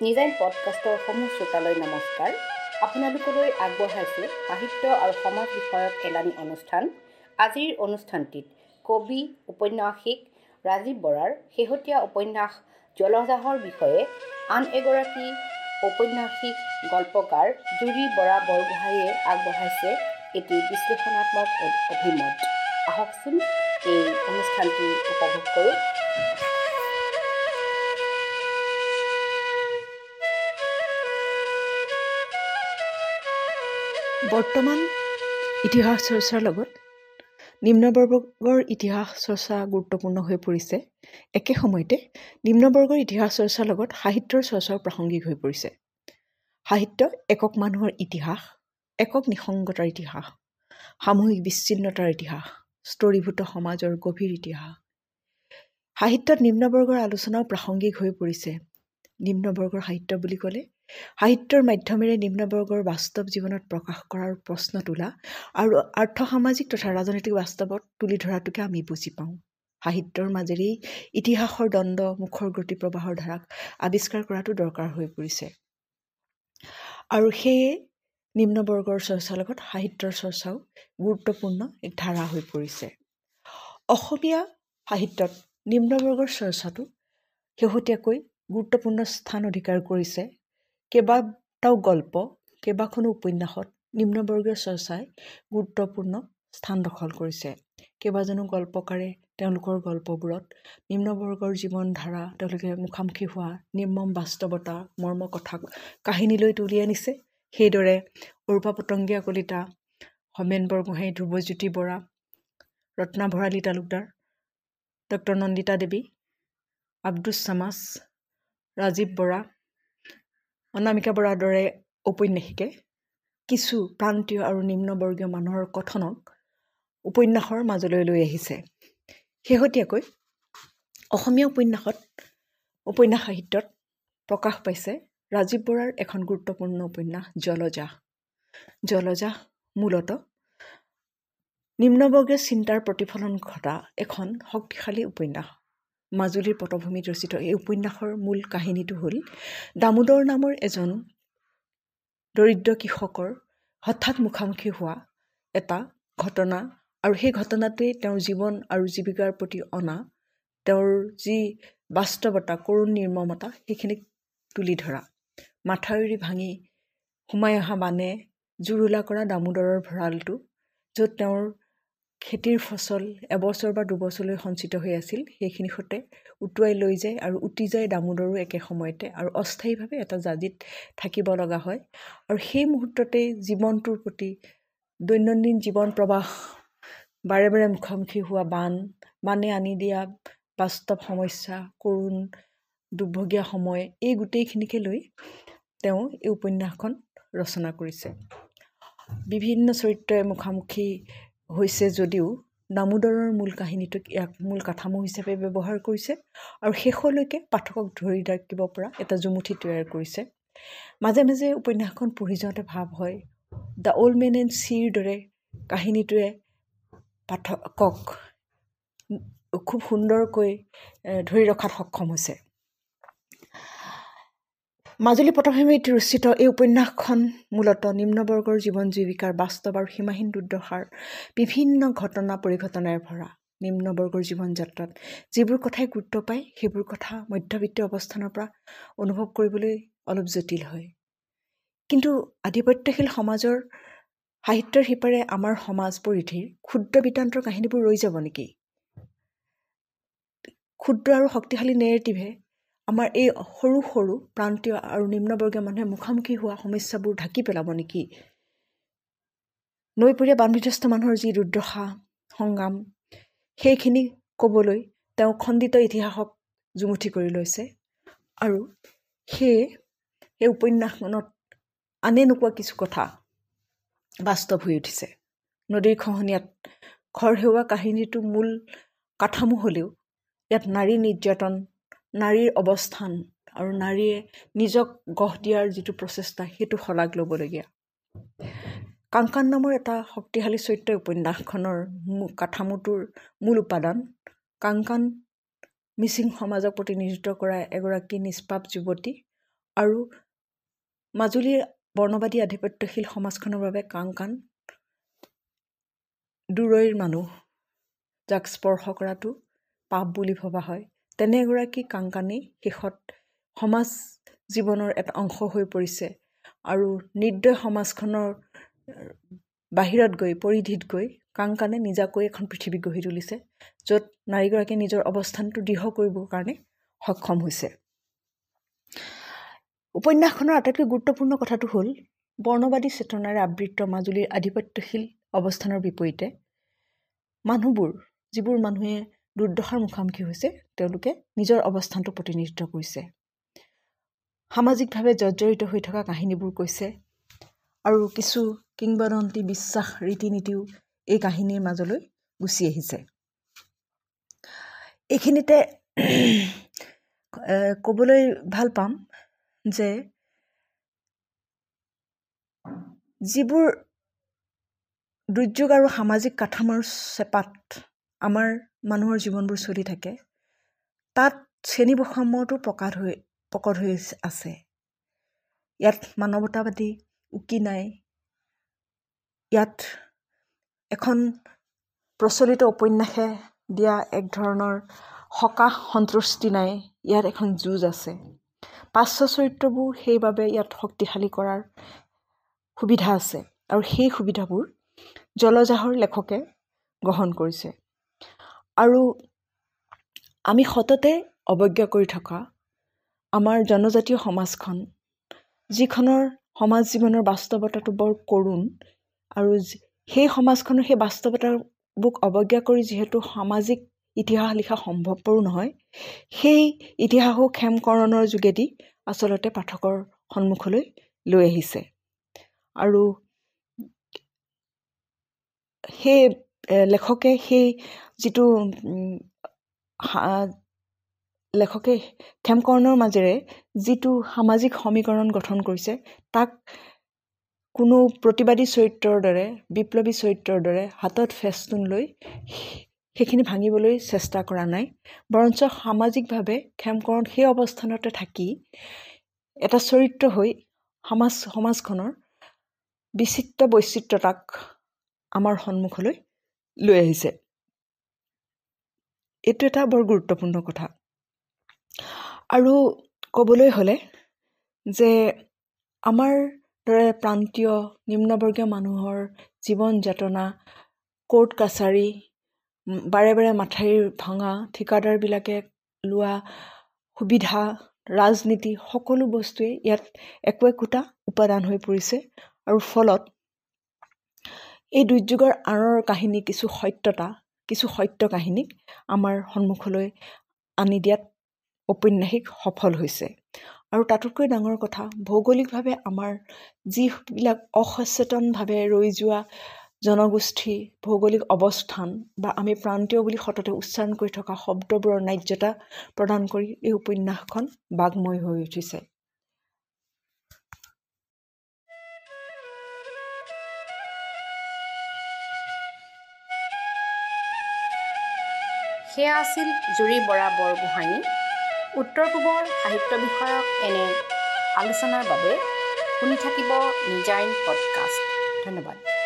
নিজাইন পডকাষ্টৰ সমূহ শ্ৰোতালৈ নমস্কাৰ। আপোনালোকলৈ আগবঢ়াইছোঁ সাহিত্য আৰু সমাজ বিষয়ক এলানি অনুষ্ঠান। আজিৰ অনুষ্ঠানটিত কবি উপন্যাসিক ৰাজীৱ বৰাৰ শেহতীয়া উপন্যাস জলজাহৰ বিষয়ে আন এগৰাকী ঔপন্যাসিক গল্পকাৰ জুৰি বৰা বৰগোহাঁইয়ে আগবঢ়াইছে এটি বিশ্লেষণাত্মক অভিমত। আহকচোন এই অনুষ্ঠানটি উপভোগ কৰোঁ। বৰ্তমান ইতিহাস চৰ্চাৰ লগত নিম্নবৰ্গৰ ইতিহাস চৰ্চা গুৰুত্বপূৰ্ণ হৈ পৰিছে। একে সময়তে নিম্নবৰ্গৰ ইতিহাস চৰ্চাৰ লগত সাহিত্যৰ চৰ্চাও প্ৰাসংগিক হৈ পৰিছে। সাহিত্য একক মানুহৰ ইতিহাস, একক নিসংগতাৰ ইতিহাস, সামূহিক বিচ্ছিন্নতাৰ ইতিহাস, স্তৰীভূত সমাজৰ গভীৰ ইতিহাস। সাহিত্যত নিম্নবৰ্গৰ আলোচনাও প্ৰাসংগিক হৈ পৰিছে। নিম্নবৰ্গৰ সাহিত্য বুলি ক'লে সাহিত্যৰ মাধ্যমেৰে নিম্নবৰ্গৰ বাস্তৱ জীৱনত প্ৰকাশ কৰাৰ প্ৰশ্ন তোলা আৰু আৰ্থসামাজিক তথা ৰাজনৈতিক বাস্তৱত তুলি ধৰাটোকে আমি বুজি পাওঁ। সাহিত্যৰ মাজেৰেই ইতিহাসৰ দ্বন্দ্ব, মুখৰ গতি প্ৰবাহৰ ধাৰাক আৱিষ্কাৰ কৰাটো দৰকাৰ হৈ পৰিছে। আৰু সেয়ে নিম্নবৰ্গৰ চৰ্চাৰ লগত সাহিত্যৰ চৰ্চাও গুৰুত্বপূৰ্ণ এক ধাৰা হৈ পৰিছে। অসমীয়া সাহিত্যত নিম্নবৰ্গৰ চৰ্চাটো শেহতীয়াকৈ গুৰুত্বপূৰ্ণ স্থান অধিকাৰ কৰিছে। কেইবাটাও গল্প, কেইবাখনো উপন্যাসত নিম্নবৰ্গীয় চৰ্চাই গুৰুত্বপূৰ্ণ স্থান দখল কৰিছে। কেইবাজনো গল্পকাৰে তেওঁলোকৰ গল্পবোৰত নিম্নবৰ্গৰ জীৱনধাৰা, তেওঁলোকে মুখামুখি হোৱা নিৰ্মম বাস্তৱতা, মৰ্ম কথা কাহিনীলৈ তুলি আনিছে। সেইদৰে অৰূপা পতংগীয়া কলিতা, হোমেন বৰগোহাঁই, ধ্ৰুৱজ্যোতি বৰা, ৰত্না ভৰালী তালুকদাৰ, ডক্টৰ নন্দিতা দেৱী, আব্দুছ ছামাছ, ৰাজীৱ বৰা, অনামিকা বৰাৰ দৰে ঔপন্যাসিকে কিছু প্ৰান্তীয় আৰু নিম্নবৰ্গীয় মানুহৰ কথনক উপন্যাসৰ মাজলৈ লৈ আহিছে। শেহতীয়াকৈ অসমীয়া উপন্যাস সাহিত্যত প্ৰকাশ পাইছে ৰাজীৱ বৰাৰ এখন গুৰুত্বপূৰ্ণ উপন্যাস জলজাহ। জলজাহ মূলতঃ নিম্নবৰ্গীয় চিন্তাৰ প্ৰতিফলন ঘটা এখন শক্তিশালী উপন্যাস। মাজুলীৰ পটভূমিত ৰচিত এই উপন্যাসৰ মূল কাহিনীটো হ'ল দামোদৰ নামৰ এজন দৰিদ্ৰ কৃষকৰ হঠাৎ মুখামুখি হোৱা এটা ঘটনা আৰু সেই ঘটনাটোৱে তেওঁৰ জীৱন আৰু জীৱিকাৰ প্ৰতি অনা তেওঁৰ যি বাস্তৱতা, কৰুণ নিৰ্মমতা, সেইখিনিক তুলি ধৰা। মাথাউৰি ভাঙি সোমাই অহা বানে জুৰুলা কৰা দামোদৰৰ ভঁৰালটো, য'ত তেওঁৰ খেতিৰ ফচল এবছৰ বা দুবছৰলৈ সঞ্চিত হৈ আছিল, সেইখিনি সৈতে উটুৱাই লৈ যায় আৰু উটি যায় দামোদৰো একে সময়তে আৰু অস্থায়ীভাৱে এটা জাজিত থাকিব লগা হয়। আৰু সেই মুহূৰ্ততেই জীৱনটোৰ প্ৰতি দৈনন্দিন জীৱন প্ৰবাহ, বাৰে বাৰে মুখামুখি হোৱা বান, বানে আনি দিয়া বাস্তৱ সমস্যা, কৰুণ দুৰ্ভগীয়া সময়, এই গোটেইখিনিকে লৈ তেওঁ এই উপন্যাসখন ৰচনা কৰিছে। বিভিন্ন চৰিত্ৰই মুখামুখি হৈছে যদিও দামোদৰৰ মূল কাহিনীটোক ইয়াক মূল কাঠামো হিচাপে ব্যৱহাৰ কৰিছে আৰু শেষলৈকে পাঠকক ধৰি ৰাখিব পৰা এটা জুমুঠি তৈয়াৰ কৰিছে। মাজে মাজে উপন্যাসখন পঢ়ি যাওঁতে ভাৱ হয় the old man and চিৰ দৰে কাহিনীটোৱে পাঠকক খুব সুন্দৰকৈ ধৰি ৰখাত সক্ষম হৈছে। মাজুলী পটভূমিত ৰচিত এই উপন্যাসখন মূলতঃ নিম্নবৰ্গৰ জীৱন জীৱিকাৰ বাস্তৱ আৰু সীমাহীন দুৰ্দশাৰ বিভিন্ন ঘটনা পৰিঘটনাৰে ভৰা। নিম্নবৰ্গৰ জীৱন যাত্ৰাত যিবোৰ কথাই গুৰুত্ব পায়, সেইবোৰ কথা মধ্যবিত্তীয় অৱস্থানৰ পৰা অনুভৱ কৰিবলৈ অলপ জটিল হয়। কিন্তু আধিপত্যশীল সমাজৰ সাহিত্যৰ সিপাৰে আমাৰ সমাজ পৰিধিৰ ক্ষুদ্ৰ বৃত্তান্তৰ কাহিনীবোৰ ৰৈ যাব নেকি? ক্ষুদ্ৰ আৰু শক্তিশালী নেৰেটিভে আমাৰ এই সৰু সৰু প্ৰান্তীয় আৰু নিম্নবৰ্গীয় মানুহে মুখামুখি হোৱা সমস্যাবোৰ ঢাকি পেলাব নেকি? নৈপৰীয়া বানবিধ্বস্ত মানুহৰ যি দুৰ্দশা, সংগ্ৰাম, সেইখিনি ক'বলৈ তেওঁ খণ্ডিত ইতিহাসক জুমুঠি কৰি লৈছে আৰু সেয়ে এই উপন্যাসখনত আনে নোকোৱা কিছু কথা বাস্তৱ হৈ উঠিছে। নদীৰ খহনীয়াত ঘৰ হেৰুওৱা কাহিনীটো মূল কাঠামো হ'লেও ইয়াত নাৰী নিৰ্যাতন, নাৰীৰ অৱস্থান আৰু নাৰীয়ে নিজক গঢ় দিয়াৰ যিটো প্ৰচেষ্টা, সেইটো শলাগ ল'বলগীয়া। কাংকান নামৰ এটা শক্তিশালী চৰিত্ৰ উপন্যাসখনৰ কাঠামোটোৰ মূল উপাদান। কাংকান মিচিং সমাজক প্ৰতিনিধিত্ব কৰা এগৰাকী নিষ্পাপ যুৱতী আৰু মাজুলীৰ বৰ্ণবাদী আধিপত্যশীল সমাজখনৰ বাবে কাংকান দূৰৈৰ মানুহ, যাক স্পৰ্শ কৰাটো পাপ বুলি ভবা হয়, তেনে এগৰাকী কাংকানেই শেষত সমাজ জীৱনৰ এটা অংশ হৈ পৰিছে আৰু নিৰ্দয় সমাজখনৰ বাহিৰত গৈ, পৰিধিত গৈ কাংকানে নিজাকৈ এখন পৃথিৱী গঢ়ি তুলিছে, য'ত নাৰীগৰাকীয়ে নিজৰ অৱস্থানটো দৃঢ় কৰিবৰ কাৰণে সক্ষম হৈছে। উপন্যাসখনৰ আটাইতকৈ গুৰুত্বপূৰ্ণ কথাটো হ'ল বৰ্ণবাদী চেতনাৰে আবৃত মাজুলীৰ আধিপত্যশীল অৱস্থানৰ বিপৰীতে মানুহবোৰ, যিবোৰ মানুহে দুৰ্দশাৰ মুখামুখি হৈছে, তেওঁলোকে নিজৰ অৱস্থানটো প্ৰতিনিধিত্ব কৰিছে। সামাজিকভাৱে জৰ্জৰিত হৈ থকা কাহিনীবোৰ কৈছে আৰু কিছু কিংবদন্তি, বিশ্বাস, ৰীতি নীতিও এই কাহিনীৰ মাজলৈ গুচি আহিছে। এইখিনিতে ক'বলৈ ভাল পাম যে যিবোৰ দুৰ্যোগ আৰু সামাজিক কাঠামোৰ চেপাত আমাৰ মানুহৰ জীৱনবোৰ চলি থাকে, তাত শ্ৰেণী বৈষম্যটো প্ৰকট হৈ আছে। ইয়াত মানৱতাবাদী উকি নাই। ইয়াত এখন প্ৰচলিত উপন্যাসে দিয়া এক ধৰণৰ সকাহ সন্তুষ্টি নাই। ইয়াত এখন যুঁজ আছে। পাৰ্শ্ব চৰিত্ৰবোৰ সেইবাবে ইয়াত শক্তিশালী কৰাৰ সুবিধা আছে আৰু সেই সুবিধাবোৰ জলজাহৰ লেখকে গ্ৰহণ কৰিছে। আৰু আমি সততে অৱজ্ঞা কৰি থকা আমাৰ জনজাতীয় সমাজখন, যিখনৰ সমাজ জীৱনৰ বাস্তৱতাটো বৰ কৰুণ, আৰু সেই সমাজখনৰ সেই বাস্তৱতাবোৰ অৱজ্ঞা কৰি যিহেতু সামাজিক ইতিহাস লিখা সম্ভৱপৰো নহয়, সেই ইতিহাসো ক্ষেমকৰণৰ যোগেদি আচলতে পাঠকৰ সন্মুখলৈ লৈ আহিছে। আৰু সেই লেখকে সেই যিটো লেখকে ক্ষেমকৰণৰ মাজেৰে যিটো সামাজিক সমীকৰণ গঠন কৰিছে, তাক কোনো প্ৰতিবাদী চৰিত্ৰৰ দৰে, বিপ্লৱী চৰিত্ৰৰ দৰে হাতত ফেষ্টুন লৈ সেইখিনি ভাঙিবলৈ চেষ্টা কৰা নাই, বৰঞ্চ সামাজিকভাৱে ক্ষেমকৰণ সেই অৱস্থানতে থাকি এটা চৰিত্ৰ হৈ সমাজখনৰ বিচিত্ৰ বৈচিত্ৰতাক আমাৰ সন্মুখলৈ লৈ আহিছে। এইটো এটা বৰ গুৰুত্বপূৰ্ণ কথা। আৰু ক'বলৈ হ'লে যে আমাৰ দৰে প্ৰান্তীয় নিম্নবৰ্গীয় মানুহৰ জীৱন যাতনা, কোৰ্ট কাছাৰী, বাৰে বাৰে মাথাউৰি ভঙা, ঠিকাদাৰবিলাকে লোৱা সুবিধা, ৰাজনীতি, সকলো বস্তুৱেই ইয়াত একো একোটা উপাদান হৈ পৰিছে। আৰু ফলত এই দুৰ্যোগৰ আঁৰৰ কাহিনী কিছু সত্যতা, কিছু সত্য কাহিনীক আমাৰ সন্মুখলৈ আনি দিয়াত ঔপন্যাসিক সফল হৈছে। আৰু তাতোতকৈ ডাঙৰ কথা, ভৌগোলিকভাৱে আমাৰ যিবিলাক অসচেতনভাৱে ৰৈ যোৱা জনগোষ্ঠী, ভৌগোলিক অৱস্থান বা আমি প্ৰান্তীয় বুলি সততে উচ্চাৰণ কৰি থকা শব্দবোৰৰ ন্যায্যতা প্ৰদান কৰি এই উপন্যাসখন বাগ্ময় হৈ উঠিছে। সেয়া আছিল জুৰি বৰা বৰগোহাঁই। উত্তৰ পূবৰ সাহিত্য বিষয়ক এনে আলোচনাৰ বাবে শুনি থাকিব নিজাইন পডকাষ্ট। ধন্যবাদ।